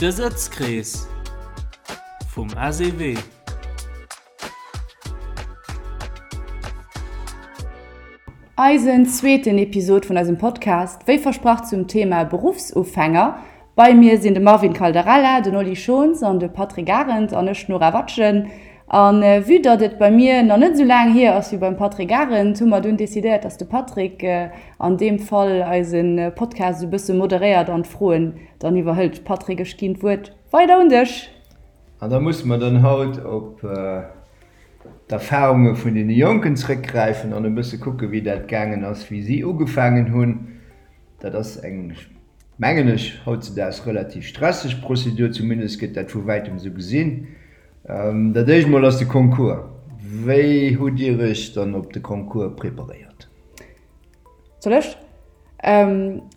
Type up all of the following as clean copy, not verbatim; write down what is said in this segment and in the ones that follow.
De Sëtzkrees vum SEW. Eisen zweeten Episod vun eisem Podcast, wéi versprach zum Thema Beruffsufänger. Bei mir sinn de Marvin Caldarella, den Oli Schons an de Patrick Arendt an ech, d'Nora Watgen. A vue datt et bei mir nach net esou laang hier ass wéi beim Patrick Arendt, hu mer dunn decidéiert, datt de Patrick an deem Fall eise Podcast esou e bësse moderéiert an d'Froen dann iwwerhëlt. Patrick, ech ginn d'Wuert weider un dech. An da musse mer dann haut op d'Erfahrunge vun deene Jonken zrëckgräifen an e bësse kucke wéi dat gaangen ass, wéi si ugefaangen hunn. Dat ass eng, mengen ech, hautzedaags relativ stresseg Prozedur, zumindest gëtt dat vu wäitem esou gesinn. Dat éischt mol ass de Concours. Wéi hutt Dir Iech dann op de Concours preparéiert? Soll ech?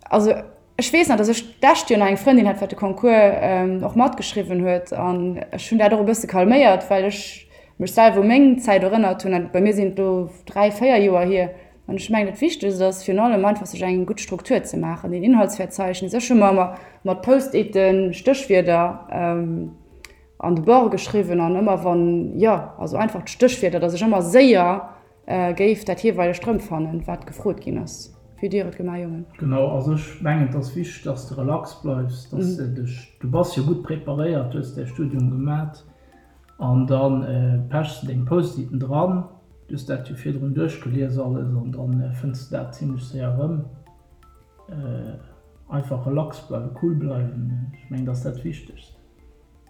Also ech weess nach, datt ech d'lescht Joer nach eng Frëndin hat, wat de Concours och matgeschriwwen huet an ech hunn dat och e bësse calméiert, well ech mech selwer u meng Zäit erënnert hunn an bei mir sinn et elo 3, 4 Joer hier. An ech mengen, dat Wichtegst ass virun allem einfach, sech eng gutt Struktur ze maachen, een Inhaltsverzeichnis. Ech hu mer ëmmer mat Post-iten Stéchwierder an de Bord geschriwwen an ëmmer wann, jo, also einfach d'Stéchwierder, datt ech ëmmer séier géif dat jeeweilegt erëmfannen, wat gefrot ginn ass. Wéi hutt Dir et gemaach, Jongen? Genau, also ech mengen, et ass wichteg, datt s de relax bleifs, datt s de dech, du bass jo gutt preparéiert, du hues däi Studium gemat an da pechs de deng Post-iten dran, du hues dat jo virdrun duerchgelies alles an da fënns de dat zimlech séier erëm. Einfach relax bleiwen, cool bleiwen, ech mengen, dat ass dat Wichtegst.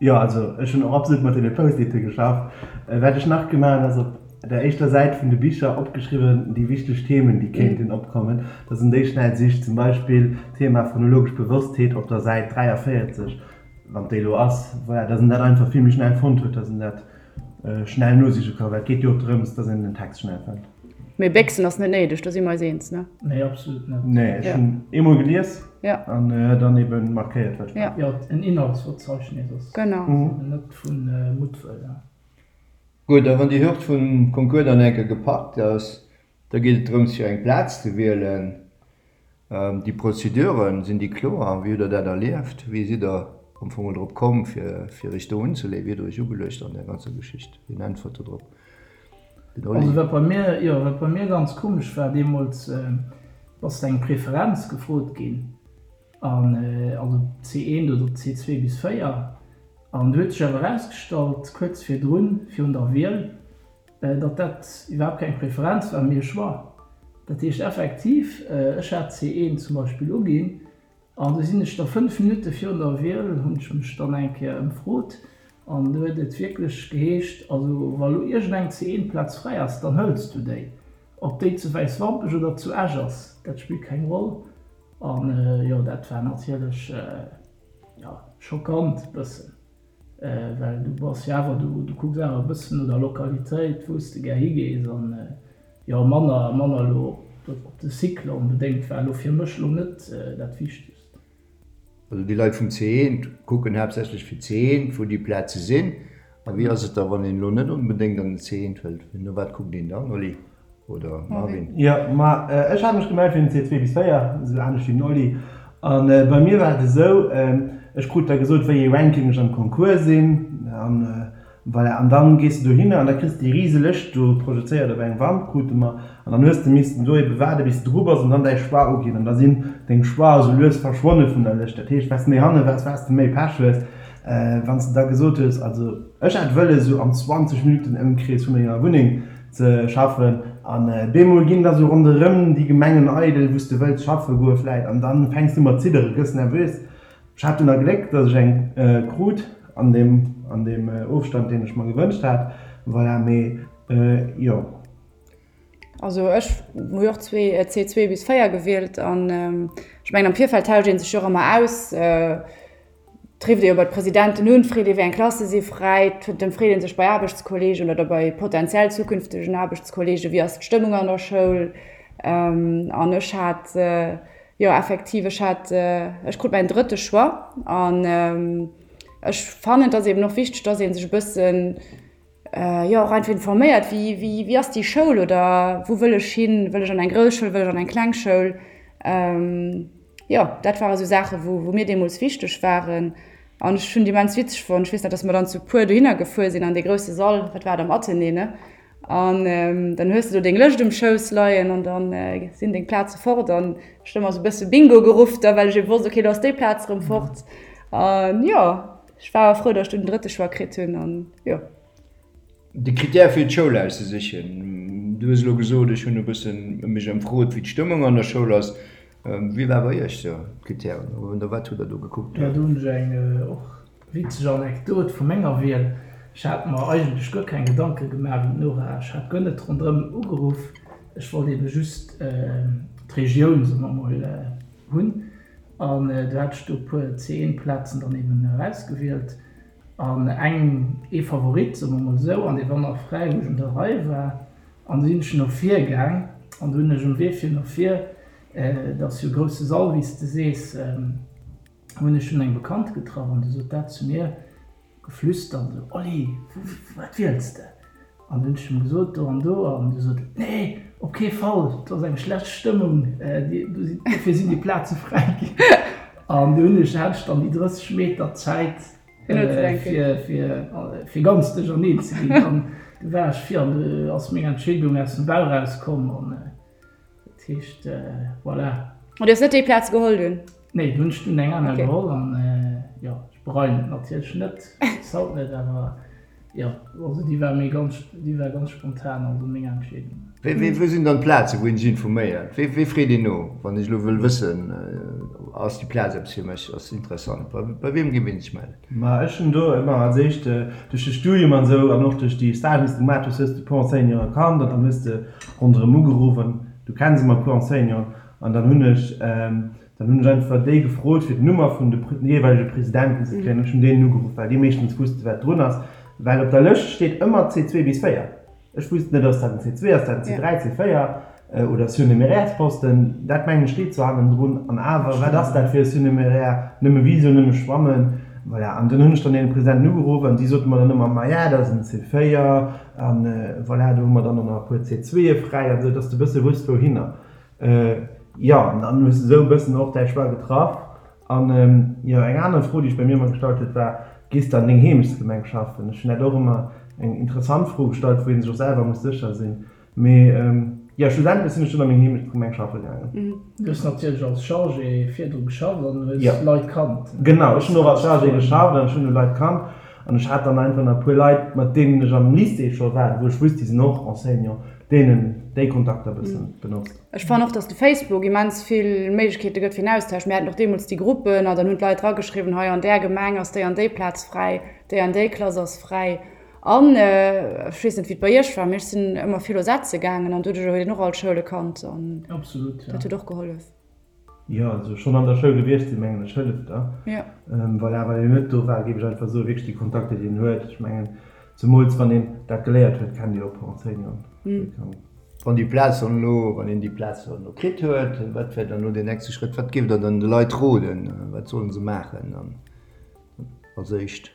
Jo, also ech hunn och absolut mat deene Post-ite geschafft. Wat ech nach gemaach hunn, ass op der éischter Säit vun de Bicher opgeschriwwen déi wichteg Themen, déi kéinten opkommen, dass en déi schnell sicht. Zum Beispill d'Thema phonologesch Bewosstheet op der Säit 43, wann déi elo ass, voilà, dass en dat einfach vill méi schnell fonnt huet, dass en dat Schnell nosiche ka, well et geet jo och drëms, dass een den Text schnell fënnt. Mee béchsen ass net néideg, do si mer eis eens, ne? Nee, absolut net. Nee, ech hunn eemol gelies an dann ebe markéiert, wat war. Jo, en Inhaltsverzeichnis ass eben net vu Muttwëll. Gutt, a wann déi Hürd vum Concours dann eng Kéier gepackt ass, da geet et drëms, fir eng Plaz ze wielen. Déi Prozeduren, sinn déi kloer? Wéi hutt Der dat erlieft? Wéi sidd Der am Fong drop komm, fir Iech do unzeleeën? Wéi hutt Der Iech ugeluecht an där ganzer Geschicht? Wien äntwert do drop? Den Oli? Also wat bei mir, jo, wat bei mir ganz komesch war deemools, ass eng Preferenz gefrot ginn, an also C1 oder C2 bis 4, an du huet sech awer erausgestallt, kuerz virdrun, virun der Wiel, Datt dat iwwerhaapt keng Preferenz war, mee e Choix. Dat heescht effektiv, ech hat C1 zum Beispill uginn an du sinn ech da 5 Minutte virun der Wiel, hunn ech mech dann eng Kéier ëmfrot an du huet et wierklech geheescht, also wa lo iergendeng C1-Plaz fräi ass, dann hëls du déi. Ob déi zu Wäiswampech oder zu Esch ass, dat spillt keng Roll. An jo, dat war natierlech, jo, schockant bëssen. Well du bass jo awer, du kucks awer e bëssen no der Lokalitéit, wou s de gär higees an jo manner, manner elo op de Cycle onbedéngt war elo fir mech elo net dat Wichtegst. Also déi Leit vum C1 kucken haaptsächlech fir C1, wou déi Plaze sinn. A wéi ass et da, wann een elo net onbedéngt an den C1 wëllt? No wat kuckt een dann, Oli? Oder Marvin? Jo, ma ech hat mech gemellt fir den C2 bis 4, esou anescht wéi den Oli. An bei mir war et esou, ech krut da gesot, wéi ee Ranking ech am Concours sinn. An voilà, an dann gees de dohinner an da kriss de déi rise Lëscht do projezéiert op eng Wand, krute mer. An dann hues de missten do ebe waarde bis de dru bass an dann däi Choix uginn. An da sinn deng Choix esou lues verschwonne vun der Lëscht. Dat heescht, wat s de méi hanne waars, wat s de méi Pech hues. Wann s de da gesot hues, also ech hätt wëlles esou am 20 Minuten Ëmkrees vu menger Wunneng ze schaffen an bemol ginn da sou ronderëm déi Gemengen eidel wou s de wëlls schaffe goe vläit an dann fänks du mat ziddere, gëss nervös. Ech hat dunn a Gléck, dass ech eng krut an deem an deem Ofstand deen ech mer gewënscht hat, voilà, mee jo. Also ech hu jo och zwee C2 bis 4 gewielt an ech mengen am Virfeld tauscht ee sech jo och ëmmer aus. Et rifft ee jo bei d'Presidenten un, freet ee wéi eng Klasse si fräi, et ëmfreet ee sech bei Aarbechtskollegen oder bei potentiell zukünftegen Aarbechtskollegen, wéi ass d'Stëmmung an der Schoul. An ech hat, jo effektiv, ech hat, ech krut mäin drëtte Choix an ech fannen, et ass eben och wichteg, dass ee sech e bëssen, jo och einfach informéiert, wéi, wéi, wéi ass déi Schoul oder wou wëll ech hin, wëll ech an eng grouss Schoul, wëll ech an eng kleng Schoul. Jo, dat ware sou Saachen, wou, wou mir deemools wichteg waren. An ech hunn et immens witzeg fonnt. Ech weess nach, dass mer dann zu puer dohinner gefuer sinn an dee grousse Sall, wat war et, am Athenée, ne? An dann hues de do deng Lëscht um Schouss leien an dann sinn deng Plaze fort. An ech hunn ëmmer esou e bësse Bingo geruff da, well ech ebe wosst, okay, lo ass déi Plaz erëm fort. An jo, ech war awer frou, datt ech dunn den drëtte Choix kritt hunn an jo. De Critère fir d'Schoul auszesichen, du hues elo gesot, ech hunn e bëssen mech ëmfrot, wéi d'Stëmmung an der Schoul ass. Wéi war bei Iech sou d'Critèren oder wat hutt Der do gekuckt? Jo, do hunn ech eng och witzeg Anekdot vu menger Wiel. Ech hat mer eigentlech guer keng Gedanke gemaach wéi d'Nora. Ech hat guer net ronderëm ugeruff. Ech wollt ebe just d'Regioun, soe mer mol, hunn. An du hat ech do e puer C1-Plazen dann eben erausgewielt. An eng, ee Favorit, soe mer mol esou, an dee war nach fräi, wou ech un der Rei war. An du sinn ech no vir gaang an du hunn ech um Wee fir no vir, et ass jo e grousse Sall, wéi s de sees, hunn ech dunn eng Bekannt getraff an du sot dat zu mir, geflüstert esou, Oli, wat wiels de? An du hunn ech him gesot, do an do. An du sot en, Nee, op kee Fall, do ass eng schlecht Stëmmung, dofir sinn déi Plaze fräi ginn. An du hunn ech, hat ech dann déi 30 Meter Zäit, fir ganz duercherneen ze ginn. An du war ech vir an du ass meng Entscheedung aus dem Bauch erauskomm. An dat heescht, voilà. An du hues net déi Plaz geholl dunn? Nee, du hunn ech dunn eng aner geholl an jo, ech bereien et natierlech net, bis haut net, awer jo, also déi war méi ganz, déi war ganz spontan, also meng Entscheedung. Wéi, wou sinn dann d'Plazen, wou een sech informéiert? Wéi, wéi freet een no, wann ech elo wëll wëssen, ass déi Plaz eppes fir mech, ass se interessant? Bei, bei wiem géif een sech mellen? Ma ech hunn do ëmmer als éischt duerch de Studium an esou an och duerch déi Stagen, déi s de gemaach hues, hues de e puer Enseignanten kannt an dann hues de ronderëm ugeruff an du kenns ëmmer e puer Enseignanten an dann hunn ech, Dann hunn ech einfach déi gefrot, fir d'Nummer vun de jeeweilege Presidenten ze kréien. Ech hunn deenen ugeruff, well déi meeschtens wusste wat drun ass. Well op der Lëscht steet ëmmer C2 bis 4. Ech wusst net, ass dat en C2, ass dat en C3, C4 oder Surnuméraires-Posten. Dat mengen ech steet zwar hannendrun. An awer, wat ass dat fir e Surnuméraire? Nëmme Visio, nëmme Schwammen. Voilà. An dunn hunn ech dann deene Presidenten ugeruff an déi sote mer dann ëmmer, Maja, dat ass en C4 an voilà, do hu mer dann och nach e puer C2e fräi an esou, dass de e bësse wusst wouhinner. Jo, an dann hues de esou e bëssen och däi Choix getraff. An jo, eng aner Fro, déi ech bei mir ëmmer gestallt huet, war, Gees de an deng Heemechtsgemeng schaffen? Ech hunn dat och ëmmer eng interessant Fro gestallt, wou ee sech och selwer muss sécher sinn. Mee jo, schlussendlech sinn ech dunn a meng Heemechtsgemeng schaffe gaangen. Du hues natierlech als Chargé virdru geschafft an hues Leit kannt. Genau, ech hunn och als Chargé geschafft an ech hunn Leit kannt. An ech hat dann einfach nach e puer Leit, mat deenen ech am Lycée scho war, wou ech wusst, déi sinn och Enseignant, deenen déi Kontakter e bëssen benotzt. Ech fannen och, dass de Facebook immens vill Méiglechkeete gëtt fir en Austausch. Mir haten och deemools déi Gruppen an dann hunn d'Leit drageschriwwen, hei an där Gemeng ass déi an déi Plaz fräi, déi an déi Klass ass fräi. An ech weess net, wéi et bei iech war, mee ech sinn ëmmer vill o setze gaangen an doduercher huet een och all d'Schoule kannt an dat huet och gehollef. Jo, also schonn an der Schoul gewiescht sinn, mengen ech, hëlleft da. Jo. Voilà, wann een net do war, géif ech einfach soen, wierklech déi Kontakter, déi een huet. Ech mengen, zemools wann een dat geléiert huet, kennt ee och e puer Enseignanten. Wann déi Plaz dann elo, wann een déi Plaz dann elo kritt huet, wat wär dann elo deen nächste Schrëtt? Wat géift Der dann de Leit roden? Wat sollen se maachen dann als éischt?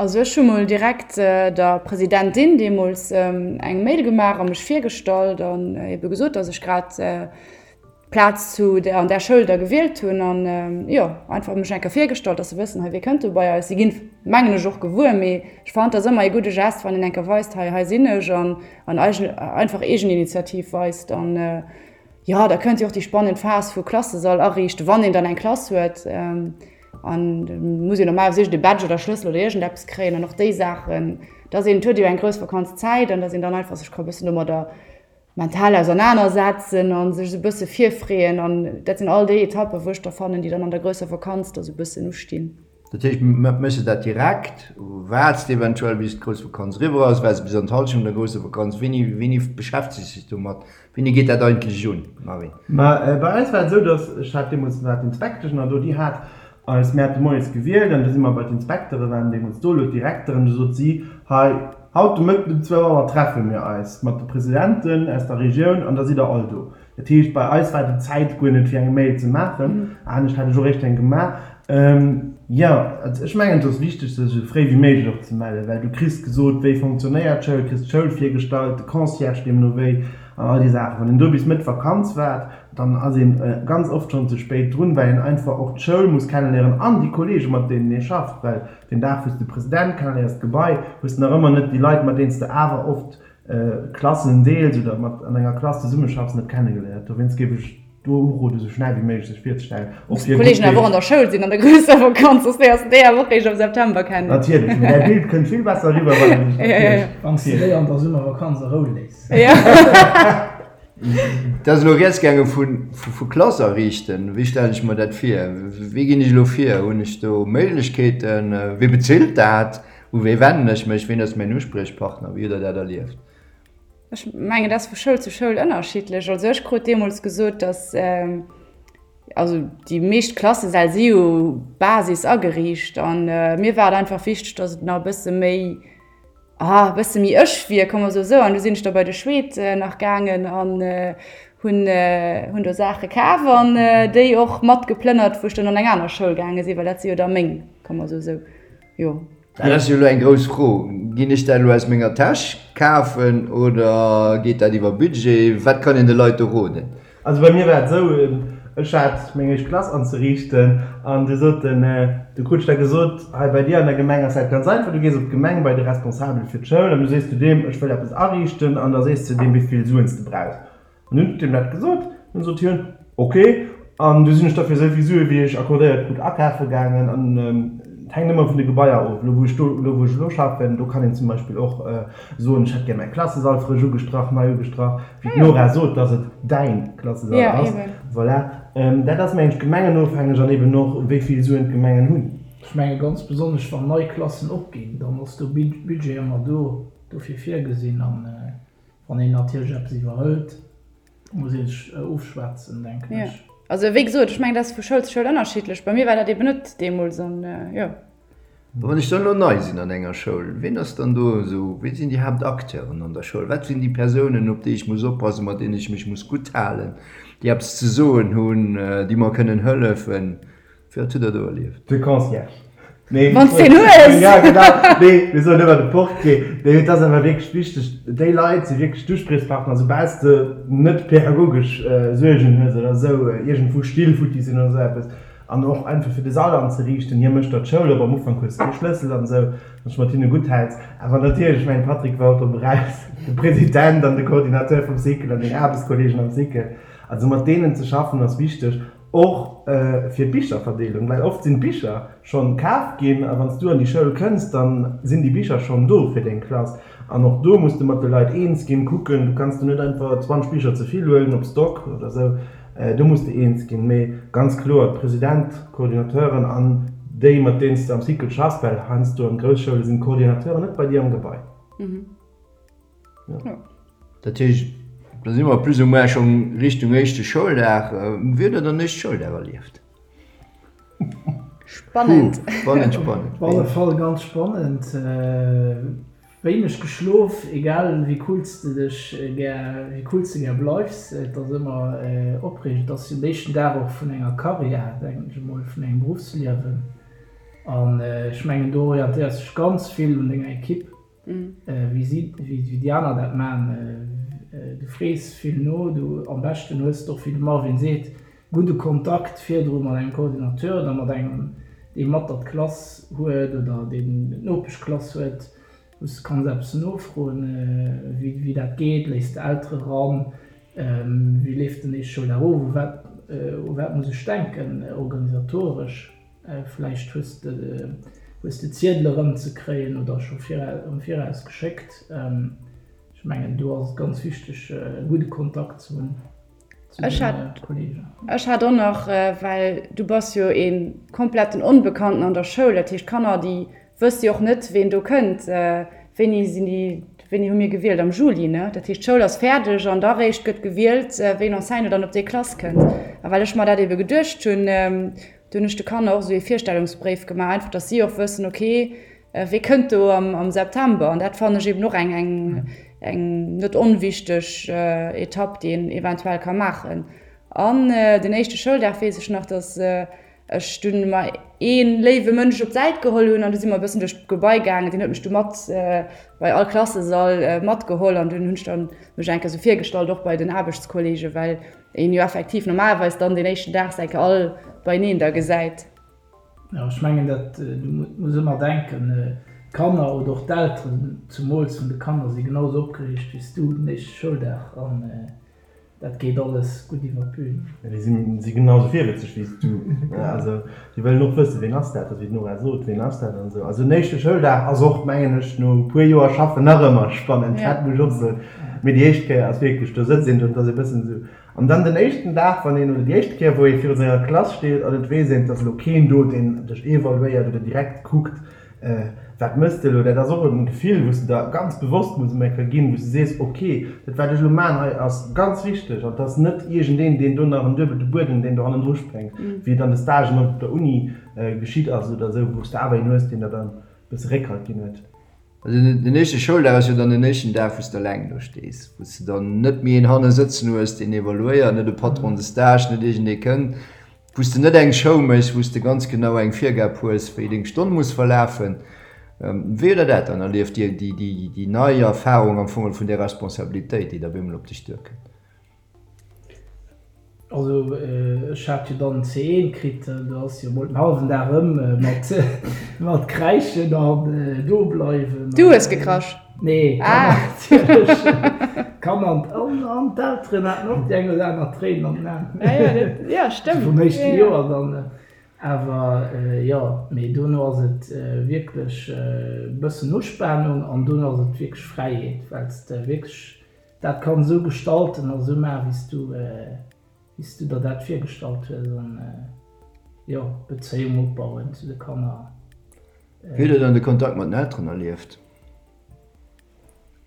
Also ech hu mol direkt der Presidentin deemools eng Mail gemaach a mech virgestallt an ebe gesot, datt ech grad d'Plaz zu der an där Schoul da gewielt hunn an jo einfach mech eng Kéier virgestallt, datt se wëssen, hei wie kënnt do bei eis. Si ginn, mengen ech, och gewuer, mee ech fannen, et ass ëmmer ee gudde Gest, wann een eng Kéier weist, hei hei sinn ech an an einfach Eegeninitiativ weist an jo da kënnt jo och déi spannend Phas vu Klassesall ariichten, wann een dann eng Klass huet. An da muss een normalerweis iergend e Badge oder Schlëssel oder iergendeppes kréien an och déi Saachen, dass een, et huet jo eng grouss Vakanzzäit an dass een dann einfach sech ka e bëssen domadder mental ausernanersetzen a sech esou e bësse virfreeën. An dat sinn all déi Etappen, wou ech da fannen, déi dann an der grousser Vakanz da sou e bëssen ustinn. Dat heescht, méchs de dat direkt, waarts de eventuell bis d'grouss Vakanz eriwwer ass, waarts de bis an d'Hallschent vun der grousser Vakanz? Wéini, wéini beschäftegs de dech domat? Wéini geet dat eigentlech un, Marvin? Ma bei eis war et esou, datt, ech hat deemools, war d'Inspektesch nach do, déi hat eis, mir hate moies gewielt an du si mer bei d'Inspektere waren deemools do, elo d'Direkteren, du sot si, hei, haut de Mëtten um zwou Auer treffe mir eis mat de Presidenten aus der Regioun an da sidd der all do. Dat heescht, bei eis war déi Zäit guer net fir eng Mail ze maachen, anescht hätt ech och eréischt eng gemaach. Jo, also ech mengen et ass wichteg sech esou fréi wéi méiglech och ze mellen, well du kriss gesot wéi fonctionnéiert d'Schoul, kriss d'Schoul virgestallt, de Concierge deemno wéi an all déi Saachen. Wann een do bis Mëtt Vakanz waart. Dann ass een ganz oft schonn ze spéit drun, well een einfach och d'Schoul muss kenneléieren an déi Kollegen, mat deenen ee schafft. Well den Dag, wou s de President kenneléiers, d'Gebai, hues de nach ëmmer net déi Leit, mat deenen s de awer oft Klassen deels oder mat an enger Klass zesummeschaffs, net kennegeléiert. Dowéinst géif ech do uroden, esou schnell wéi méiglech sech virzestellen. Och fir Kollegen awer och an der Schoul sinn an der grousser Vakanz, soss léiers de déi awer och réischt am September kennen. Natierlech, mee däi Bild kënnt vill besser eriwwer, wann een sech natierlech. Wann s de déi an der Summervakanz a Rou léiss. Et ass elo rieds gaange vu Klass ariichten. Wéi stellen ech mer dat vir? Wéi ginn ech elo vir? Hunn ech do Méiglechkeeten? Wie bezilt dat? U wee wennen ech mech? Ween ass mäin Uspriechpartner? Wéi hutt Der dat erlieft? Ech mengen, dat ass vu Schoul zu Schoul ënnerschiddlech. Also ech krut deemools gesot, datt, also déi meescht Klassesäll si jo Basis ageriicht an mir war et einfach wichteg, datt et nach e bësse méi, ah, e bësse méi ech wier, komm mer soe sou. An du sinn ech da bei de Schweed nach gaangen an hunn, hunn do Saache kaf an déi och mat geplënnert, wou ech dann an eng aner Schoul gaange sinn, well dat si jo da meng, komm mer soe sou, jo. Dat ass jo elo eng grouss Fro. Ginn ech dat elo aus menger Täsch kafen oder geet dat iwwer Budget? Wat kann een de Leit do roden? Also bei mir war et esou, ech hat meng éischt Klass anzeriichten an du sot den, du krut ech da gesot, hei bei dir an der Gemeng ass dat ganz einfach, du gees op d'Gemeng bei de Responsabel fir d'Schoul an du sees du deem, ech wëll eppes ariichten an da sees de deem wéi vill Suen s de brauchs. An hunn deem dat gesot, dunn sot hien, ok. An du sinn ech da fir esou vill Sue wéi ech accordéiert krut akafe gaangen. An et hänkt ëmmer vun de Gebaier of. Elo wou ech do, elo wou ech elo schaffen, do kann een zum Beispill och soen, ech hätt gär mäi Klassesall frësch ugestrach, nei ugestrach, wéi d'Nora sot, dass et däin Klassesall ass. Voilà. Dat ass mengen ech gemengenofhängeg an eben och wéi vill Suen d'Gemengen hunn. Ech menge ganz besonnesch wann nei Klassen opginn, dann ass do Budget ëmmer do dofir virgesinn. An Wann een natierlech eppes iwwerhëlt, muss ee sech ofschwätzen, denken ech. Jo, also wéi gesot, ech mengen, dat ass vu Schoul zu Schoul ënnerschiddlech. Bei mir war dat eben net deemools an jo. Wann ech dann elo nei sinn an enger Schoul, wien ass dann do esou, wie sinn déi Haaptacteuren an der Schoul? Wat sinn déi Persounen, op déi ech muss oppassen, mat deenen ech mech muss gutt halen, déi eppes ze soen hunn, déi mer kënnen hëllefen? Wat hutt Der do erlieft? De Concierge. Nee, Wann s deen hues! Ja, genau. Nee, mir soen ëmmer de Portier. Nee, et ass awer wierklech wichteg, déi Leit si wierklech d'Uspriechpartner, soubal s de net pädagogesch Suergen hues oder esou, iergendwou Still futti sinn oder esou eppes. An och einfach fir de Sall anzeriichten. Hie mécht der d'Schoul op, am Ufank hues de kee Schlëssel an esou, wann s de mat hinne gutt häls. Awer natierlech, ech mengen, Patrick war och drop eraus, de President an de Coordinateur vum Cycle an deng Aarbechtskolleegen am Cycle. Also mat deenen ze schaffen ass wichteg. Och fir d'Bicherverdeelung, well oft sinn d'Bicher schonn kaf ginn a wann s du an déi Schoul kënns, dann sinn déi Bicher schonn do fir deng Klass. An och do muss de mat de Leit eens ginn, kucken, du kanns do net einfach 20 Bicher ze vill huelen op Stock oder esou, do muss de eens ginn. Mee ganz kloer, d'President, d'Coordinateuren an déi mat deenen s de am Cycle schaffs, well heiansdo an Groussschoule sinn d'Coordinateuren net bei dir am Gebai. Dat heescht, da si mer plus ou moins schonn Richtung éischte Schouldag. Wéi hutt Der den éischte Schouldag erlieft? Spannend. Puh, spannend, spannend. Op alle Fall ganz spannend. Wéineg geschlof, egal wéi cool s de dech gär, wéi cool s de gär bleifs, et ass ëmmer opreegend. Et ass jo den éischten Dag och vun enger Karriär, denken ech emol, vun engem Beruffsliewen. An ech mengen, do orientéiers de dech ganz vill un denger Ekipp. Wéi si, wéi déi aner dat man. Du frees vill no, du am beschten hues de och, wéi de Marvin seet, gudde Kontakt virdru mat engem Coordinateur oder mat engem, dee mat der d'Klass huet oder deen d'Nopeschklass huet, wou s de kanns eppes nofroen, wéi dat geet. Léiss de Eltere ran? Wéi leeft den éischte Schouldag of? U wat, u wat muss ech denken organisatoresch? Vläicht hues de hues de Ziedel erëmzekréien oder scho am Viraus geschéckt. Ech mengen do ass et ganz wichteg e gudde Kontakt ze hunn zu de Kollegen. Ech hat och nach, well du bass jo ee kompletten Onbekannten an der Schoul, dat heescht d'Kanner déi wësse jo och net ween do kënnt. Wéini sinn déi, wéini hu mir gewielt? Am Juli, ne? Dat heescht d'Schoul ass fäerdeg an da réischt gëtt gewielt wéi en Enseignant dann op déi Klass kënnt. A well ech mer dat ebe geduecht hunn, Do hunn ech de Kanner och esou ee Virstellungsbréif gemaach, einfach datt si och wëssen, ok, wee kënnt do am September. An dat fannen ech eben och eng, eng, eng net onwichteg Etapp, déi een eventuell ka maachen. An den éischte Schouldag weess ech nach, datt. ech dunn mer ee léiwe Mënsch op d'Säit geholl hunn an du si mer e bëssen duerch d'Gebai gaangen. Deen huet mech du mat bei all Klassesall matgeholl an dunn hunn ech dann mech eng Kéier esou virgestallt, och bei den Aarbechtskollegen, well een jo effektiv normalerweis dann deen éischten Dag se eng Kéier all beineen da gesäit. Jo, ech mengen dat, du muss ëmmer denken, d'Kanner oder och d'Elteren, zumools vun de Kanner, si genau esou opgereegt wéi s du den éischte Schouldag an dat geet alles gutt iwwer d'Bühn. Jo, déi si genau esou virwëtzeg wéi s du. Also déi wëllen och wëssen, ween ass dat, wéi d'Nora sot, ween ass dat an esou. Also den éischte Schouldag ass och, mengen ech, no e puer Joer Schaffen nach ëmmer spannend, dat muss ech och soen. Mee déi éischt Kéier ass wierklech, do sëtzt een do an et ass e bëssen esou, An dann den éischten Dag, wann een, oder déi éischt Kéier, wou ee viru senger Klass steet an et weess een, et ass elo keen do, deen dech evaluéiert oder direkt kuckt, wat mëss de elo, dat ass och e Gefill, wou s de der ganz bewosst muss eng Kéier ginn, wou s de sees, ok, dat wat ech elo maachen hei ass ganz wichteg an et ass net iergendeen, deen do nach en duebelte Buedem, deen do hannendru spréngt, wéi et an de Stagen op der Uni geschitt ass oder esou, wou s de awer een hues, deen der dann e bësse Réckhalt ginn huet. Also den éischte Schouldag ass jo dann den éischten Dag, wou s de eleng do stees, wou s de dann net méi een hanne sëtzen hues, deen evaluéiert, net e Patron de stage, net iergendee kënnt, wou s de net eng Show méchs, wou s de ganz genau eng Virgab hues, wéi deng Stonn muss verlafen. Wéi hutt Der dat dann erlieft, déi, déi, déi nei Erfarung am Fong vun där Responsabilitéit, déi da op eemol op dech duerkënnt? Also ech hat jo dann C1 kritt, do ass jo mol den hallwen Dag ëm mat mat kräischen an do bleiwen. Du hues gekrasch? Nee, ah. Natierlech. D'Kanner an an d'Elteren haten och déi eng oder aner Tréin an den Aen. Ja, ja, dat, ja, stëmmt. Vum éischte Joer dann. Awer jo, mee dono ass et wierklech e bëssen Uspanung an dono ass et wierklech Fräiheet, well s de wierklech Dat kann esou gestalten a sou maachen, wéi s du, wéi s du der dat virgestallt hues an, jo, Bezéiung opbauen zu de Kanner. Wéi hutt Der dann de Kontakt mat den Elteren erlieft?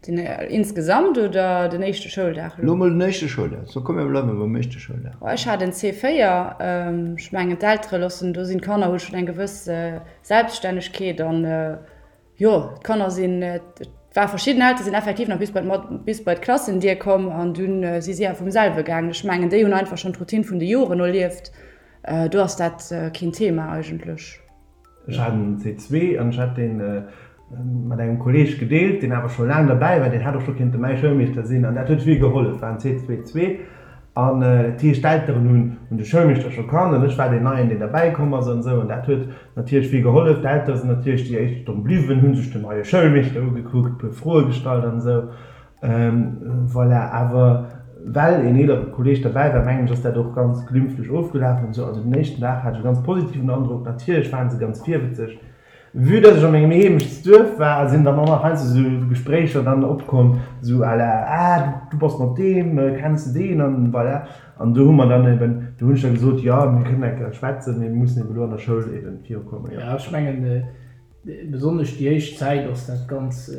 Den insgesamt oder den éischte Schouldag elo? Elo mol den éischte Schouldag. So komm mir bleiwe beim éischte Schouldag. Ech hat en C4. Ech mengen d'Eltere loossen, do sinn d'Kanner hu schonn eng gewëss Selbststännegkeet an Jo, d'Kanner sinn, et war verschidden Eltere sinn effektiv nach bis bei bis bei d'Klassendier komm an dunn si si awer vum selwe gaangen. Ech mengen, déi hunn einfach schonn d'Routine vun de Joren erlieft. Do ass dat keen Thema eigentlech. Ech hat en C2 an ech hat dee mat engem Kolleeg gedeelt, deen awer scho laang derbäi war, deen hätt och scho kéinte mäi Schoulmeeschter sinn an dat huet vill gehollef, war en C2 zwee. An dat heescht, d'Elteren hunn hunn de Schoulmeeschter scho kannt an ech war deen Neien, deen derbäi komm ass an esou. An dat huet natierlech vill gehollef. D'Eltere sinn natierlech déi éischt Stonn bliwwen, hu sech den neie Schoulmeeschter ugekuckt, puer Froe gestallt an esou. Voilà, awer well een eelere Kolleeg derbäi war, mengen ech, ass dat och ganz glimpflech ofgelaf an esou. Also den éischten Dag hat ech e ganz positiven Androck. Natierlech ware se ganz virwëtzeg. Vue dass ech a mengem Heemechtsduerf war, sinn dann och nach heiansdo sou Gespréicher dann opkomm, sou à la, ah du bass mat deem, kenns de deen an voilà. An do hu mer dann eben, do hunn ech da gesot, jo mir kënnen eng Kéier schwätzen, mee mir mussen eben elo an der Schoul eben virukommen, jo. Ja, ech mengen, besonnesch déi éischt Zäit ass dat ganz,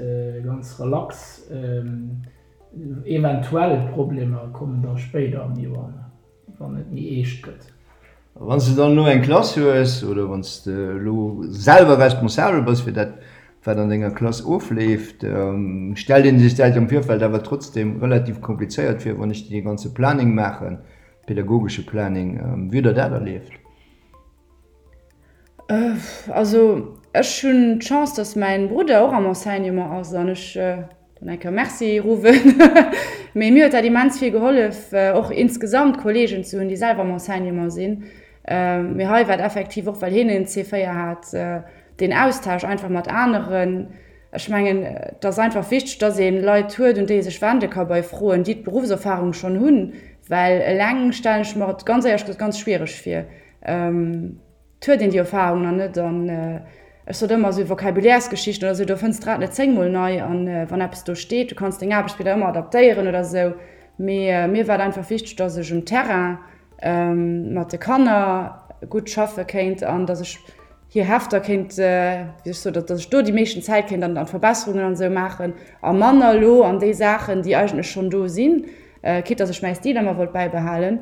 ganz relax. Eventuell Problemer kommen da spéider am Joer. Wann et méi eescht gëtt. A wann s de dann elo eng Klass hues oder wann s de elo selwer responsabel bass fir dat, wat an denger Klass ofleeft, stellt ee sech dat am Virfeld awer trotzdeem relativ komplizéiert vir, wann ech dee ganze Planning maachen, pedagogesche Planning. Wéi hutt Der dat erlieft? Also ech hunn d'Chance, datt mäin Brudder och am Enseignement ass an ech dann eng Kéier Merci ruffen. Mee mir huet dat immens vill gehollef, och insgesamt Kolleegen ze hunn, déi selwer am Enseignement sinn. Mee hei war et effektiv och, well hien en C4 hat, deen Austausch einfach mat aneren. Ech mengen, et ass einfach wichteg, datt ee Leit huet, un déi ee sech wende ka bei Froen, déi d'Beruffserfarung schonn hunn, well eleng stellen ech mer et ganz éierlech gesot ganz schwiereg vir. Et huet een déi Erfahrung nach net an ech sot ëmmer esou Vocabulairesgeschichten oder esou, do fënns d'Rad net zéngmol nei an wann eppes do steet, du kanns deng Aarbechtsblieder ëmmer adaptéieren oder esou. Mee mir war et einfach wichteg, datt ech um Terrain mat de Kanner gutt schaffe kéint an datt ech hir Hefter kéint, wéi ech sot, datt ech do déi meeschten Zäit kéint an d'Verbesserungen an esou maachen a manner elo an déi Saachen, déi eigentlech schonn do sinn, quitte datt ech mäi Stil ëmmer wollt bäibehalen.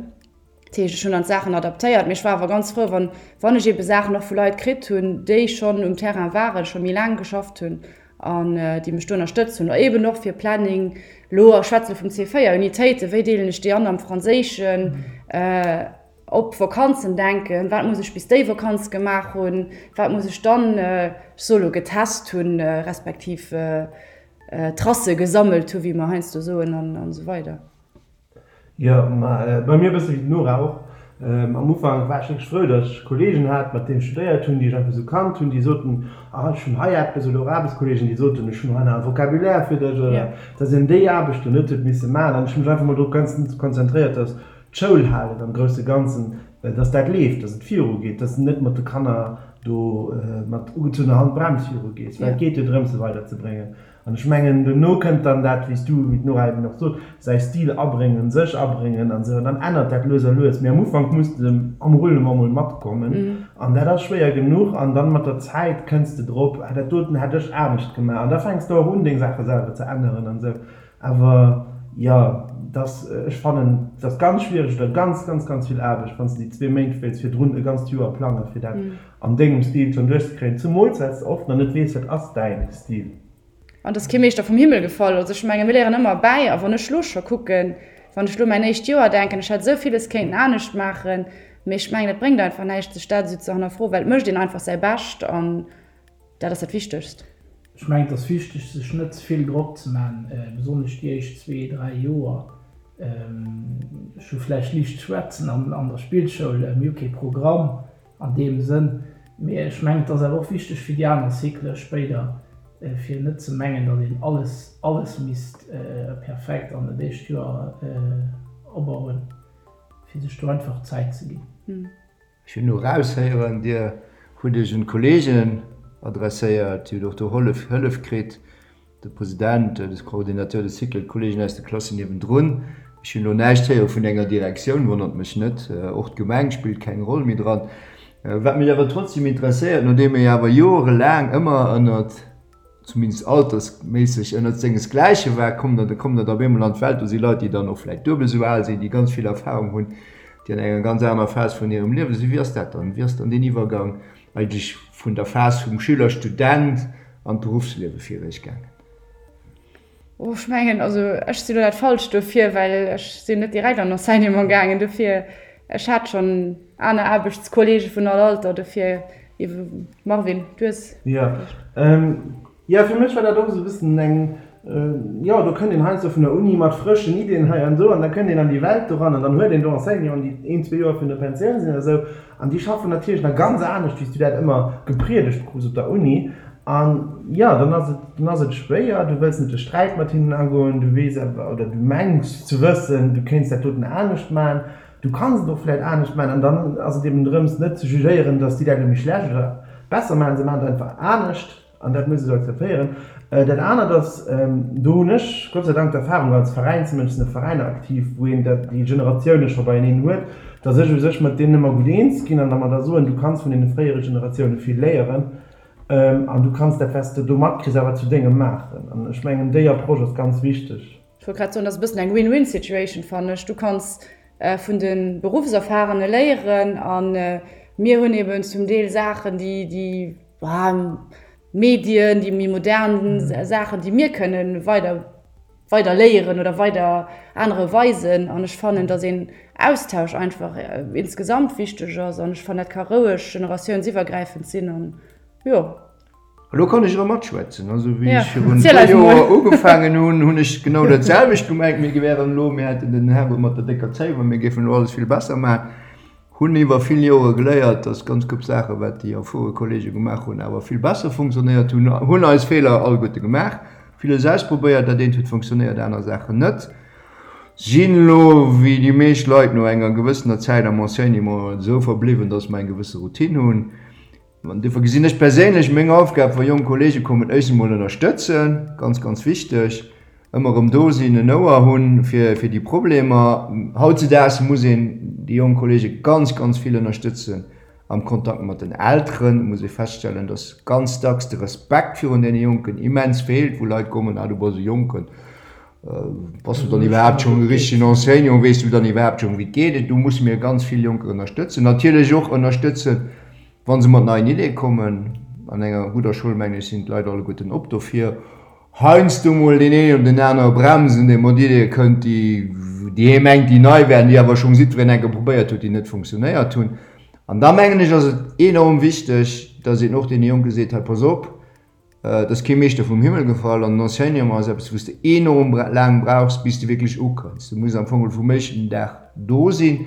Dat heescht, ech hunn dann d'Saachen adaptéiert, mee ech war awer ganz frou, wann, wann ech eebe Saachen och vu Leit kritt hunn, déi schonn um Terrain waren, scho méi laang geschafft hunn an déi mech do ënnerstëtzt hunn. Eeben och fir Planning, elo ech schwätze vum C4, Unitéiten, wéi deelen ech déi an am Franséischen? Op Vakanzen denken, wat muss ech bis déi Vakanz gemaach hunn, wat muss ech dann, ech soe lo getest hunn, respektiv Tracë gesammelt hu wéi mer heiansdo soen an esou weider. Jo, ma bei mir e bësse wéi d'Nora och. Am Ufank war ech wierklech frou, datt ech Kolleegen hat, mat deenen ech studéiert hunn, déi ech einfach esou kannt hunn, déi soten, ah ech hunn hei eppes, oder och Aarbechtskolleegen, déi soten, ech hunn hei nach e Vocabulaire fir dech, oder datt een déi Aarbechten net huet misse maachen. An ech hu mech einfach mol drop konzentréiert, datt d'Schoul halen am grousse Ganzen, dass dat leeft, dass et virugeet, dass de net mat de Kanner do mat ugezunnener Handbrems virugees, well et geet jo drëms, se weiderzebréngen. An ech mengen, dono kënnt dann dat, wéi s du, wéi d'Nora eben och sot, säi Stil abréngen, sech abréngen an esou, an dann ännert dat lues a lues. Mee am Ufank muss de am Roulement mol matkommen an dat ass schwéier genuch. An dann mat der Zäit kënns de drop, ah dat doten hätt ech anescht gemaach. An da fänks de och un, deng Saache selwer ze änneren an esou. Awer jo, dass, ech fannen, et ass ganz schwiereg oder ganz, ganz, ganz vill Aarbecht, wann s de déi zwee Méint wéilts virdrun e ganzt Joer plangen, fir dat an dengem Stil schonn duerchzekréien, zumools well s de oft nach net weess, wat ass däin Stil. An et ass kee Meeschter vum Himmel gefall. Also ech menge mir léieren ëmmer bäi. A wann ech elo scho kucken, wann ech elo mäin éischt Joer denken, ech hätt esou villes kéinten anescht maachen, mee ech mengen, et bréngt einfach näischt, sech dat esou ze hannerfroen, well et mécht een einfach säi Bescht an Dat ass dat Wichtegst. Ech mengen, et ass wichteg, sech net ze vill Drock ze man, besonnesch déi éischt zwee, dräi Joer. Ech hu vläicht liicht schwätzen an der Spillschoul, mir hu kee Programm an deem Sënn, mee ech mengen, et ass awer och wichteg fir déi aner Cyclë spéider, fir net ze mengen, datt een alles, alles misst perfekt an dat éischt Joer opbauen, fir sech do einfach Zäit ze ginn. Ech hunn elo eraushéieren, Dir hutt Iech un d'Kollegen adresséiert, Dir hutt och do Hollef, Hëllef kritt, de President, de Coordinateur de cycle, d'Kollegen aus de Klassen niewendrun. Ech hunn elo näischt héiere vun enger Direktioun, wonnert mech net. Och d'Gemeng spillt keng Roll méi dran. Wat mech awer trotzdem interesséiert, nodeem ee awer jorelaang ëmmer ënnert, zumindest altersméisseg ënnert sengesgläiche war, kommt der, da kommt der da op eemol an d'Welt, do si Leit, déi dann och vläicht duebel esou al sinn, déi ganz vill Erfahrung hunn, déi an enger ganz anerer Phas vun hirem Liewe sinn. Wéi ass dat dann? Wéi ass dann deen Iwwergang eigentlech vun der Phas vum Schüler, Student an d'Beruffsliewe fir Iech gaangen? Oh, ech mengen, also ech sinn elo dat Falscht dofir, well ech sinn net direkt an Enseignement gaangen. Dofir, ech hat schonn aner Aarbechtskollege vun all Alter, dofir, Marvin, du hues. Jo, jo, fir mech war dat och esou e bëssen eng, jo, do kënnt een heiansdo vun der Uni mat frëschen Iddien hei an do an da kënnt een an déi Welt doran an dann huet een do Enseignanten, déi een, zwee Joer virun der Pensioun sinn oder esou an déi schaffen natierlech nach ganz anescht, wéi s du dat ëmmer gepriedegt krus op der Uni. An jo, dann ass et, dann ass et schwéier, du wëlls net de Sträit mat hinnen agoen, du weess awer, oder du mengs ze wëssen, du kéints dat doten anescht maachen, du kanns et och vläicht anescht maachen. An dann ass et eben drëms, net ze jugéieren, datt déi dat elo méi schlecht oder besser maachen, se maachen et einfach anescht an dat muss ee sou akzeptéieren. Dat anert ass, do hunn ech Gott sei Dank d'Erfahrung als Veräinsmënsch, sinn a Veräiner aktiv, wou een dat, déi Generatioune scho beieneen huet, datt ech u sech mat deenen ëmmer gutt eens ginn an da mer da soen, du kanns vun deene fréiere Generatioune vill léieren. An du kanns dat, wat s de do matkriss, awer zu dengem maachen. An ech mengen, déi Approche ass ganz wichteg. Ech wollt grad soen, dat ass e bëssen eng Win-win-Situation, fannen ech. Du kanns vun de Beruffserfahrene léieren a mir hunn eben zum Deel Saachen, déi, déi Medien, déi méi modern Saachen, déi mir kënnen weider, weider léieren oder weider anere weisen. An ech fannen, datt een Austausch einfach insgesamt wichteg ass. An ech fannen, dat ka roueg generatiounsiwwergräifend sinn. An jo. Elo kann ech erëm matschwätzen. Also wéi ech virun e puer Joer ugefaangen hunn, hunn ech genau dat selwecht gemengt, mir wären elo, mir hätten den Herrgott mat der décker Zéif a mir géifen elo alles vill besser maachen. Hunn iwwer vill Jore geléiert, dass ganz gutt Saachen, wat déi erfuere Kollege gemaach hunn, awer vill besser funktionéiert hunn. Hunn eis Feeler alleguerte gemaach, villes ausprobéiert, dat eent huet funktionéiert, aner Saachen net. Sinn elo, wéi déi meescht Leit no enger gewëssener Zäit am Enseignement, esou verbliwwen, dass mer eng gewësse Routine hunn. An duerfir gesinn ech perséinlech meng Aufgab, wa jonk Kollege kommen, éischt emol ënnerstëtzen, ganz, ganz wichteg, ëmmer erëm do sinn, en Ouer hunn fir, fir déi Problemer. Hautzedaags muss een déi jonk Kollege ganz, ganz vill ënnerstëtzen am Kontakt mat den Elteren. Et muss ee feststellen, dass ganz dacks de Respekt virun deene Jonken immens feelt, wou Leit kommen, ah du bass e Jonken, bass du dann iwwerhaapt schonn e richtegen Enseignant, weess du dann iwwerhaapt schonn, wéi et geet? Do musse mir ganz vill Jonker ënnerstëtzen, natierlech och ënnerstëtzen, Wa se mat neien Ideeë kommen, an enger gudder Schoul, mengen ech, sinn d'Leit alleguerten op dofir. Heiansdo mol deen een oder den anere bremsen, dee mat Ideeë kënnt, déi, déi hee mengt, déi nei wären, déi awer schonn jiddwereen eng Kéier probéiert huet, déi net funktionéiert hunn. An da mengen ech, ass et enorm wichteg, dass een och deene Jonke seet, hei pass op, et ass kee Meeschter vum Himmel gefall an den Enseignement ass eppes, wou s de enorm laang brauchs, bis de wierklech ukënns. Du muss am Fong vum éischten Dag do sinn,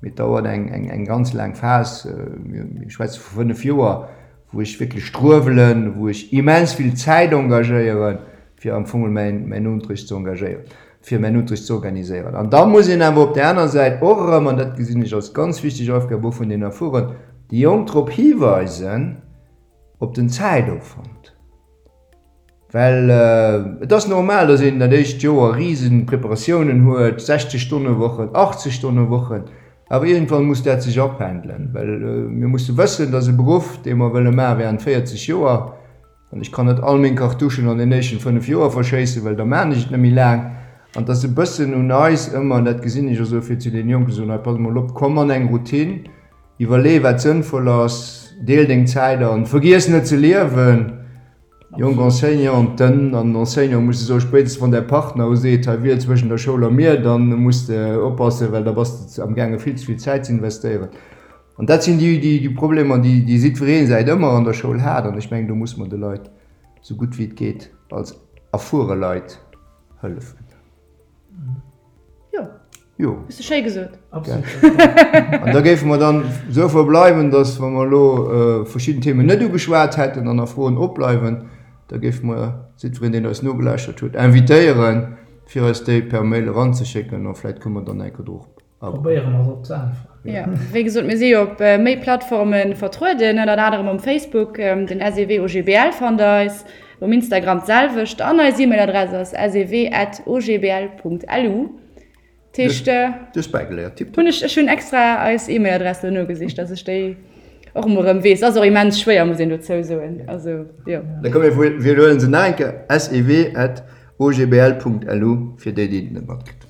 mee et dauert eng, eng, eng ganz laang Phas, mir schwätze vu 5 Joer, wou ech wierklech struewelen, wou ech immens vill Zäit engagéieren, fir am Fong mäin, mäin Unterricht ze engagéieren, fir mäin Unterricht ze organiséieren. An da muss een awer op där aner Säit och erëm, an dat gesinn ech als ganz wichteg Aufgab och vun den Erfueren, déi Jonk drop hiweisen, op den Zäitopwand. Well et ass normal, datt een dat éischt Joer risen Preparatiounen huet, 60 Stonne Wochen, 80 Stonne Wochen, awer iergendwann muss dat sech apendelen, well mir musse wëssen, datt e Beruff, dee mer wëlle maache während 40 Joer, an ech kann net all meng Cartouchen an den éischten 5 Joer verschéissen, well da maachen ech et net méi laang, an et ass e bëssen un eis ëmmer, an dat gesinn ech och esou, fir zu deene Jonken ze soen, hei pass mol op, komm an eng Routine, iwwerlee wat sënnvoll ass, deel deng Zäit an, vergiess net ze liewen. Jonk Enseignanten an Enseignante musse soen, spéitstens wann däi Partner u seet, hei wiel zwëschen der Schoul a mir, dann muss de oppassen, well da bass de am gaange vill ze vill Zäit ze investéieren. An dat sinn déi, déi, déi Problemer, déi, déi jiddweree säit ëmmer an der Schoul hat. An ech mengen, do muss mer de Leit esou gutt wéi et geet als erfuere Leit hëllefen. Jo. Jo. Hues de schéi gesot. Absolut. An da géife mer dann esou verbleiwen, dass, wa mer elo verschidden Themen net ugeschwat hätten an nach Froen opbleiwen, da géife mer jiddwereen, deen eis nogelauschtert huet, invitéieren, fir eis déi per Mail eranzeschécken a vläicht kënne mer dann eng Kéier drop agoen. Probéiere mer se op ze äntweren. Jo, wéi gesot, mir si jo op méi Plattforme vertrueden, ënnert anerem um Facebook, den SEW OGBL fannt der eis, um Instagram d'selwecht an eis E-Mail-Adress ass sew at ogbl.lu. Heescht, Du hues bäigeléiert, tipptopp. Hunn ech, ech hunn extra eis E-Mail-Adress elo nogesicht, dass ech déi och emol erëm weess. Ass och immens schwéier, muss een dozou soen. Also, jo. Da komm mir widderhuelen se nach eng Kéier, sew at ogbl.lu, fir déi, déi et net matkritt hunn.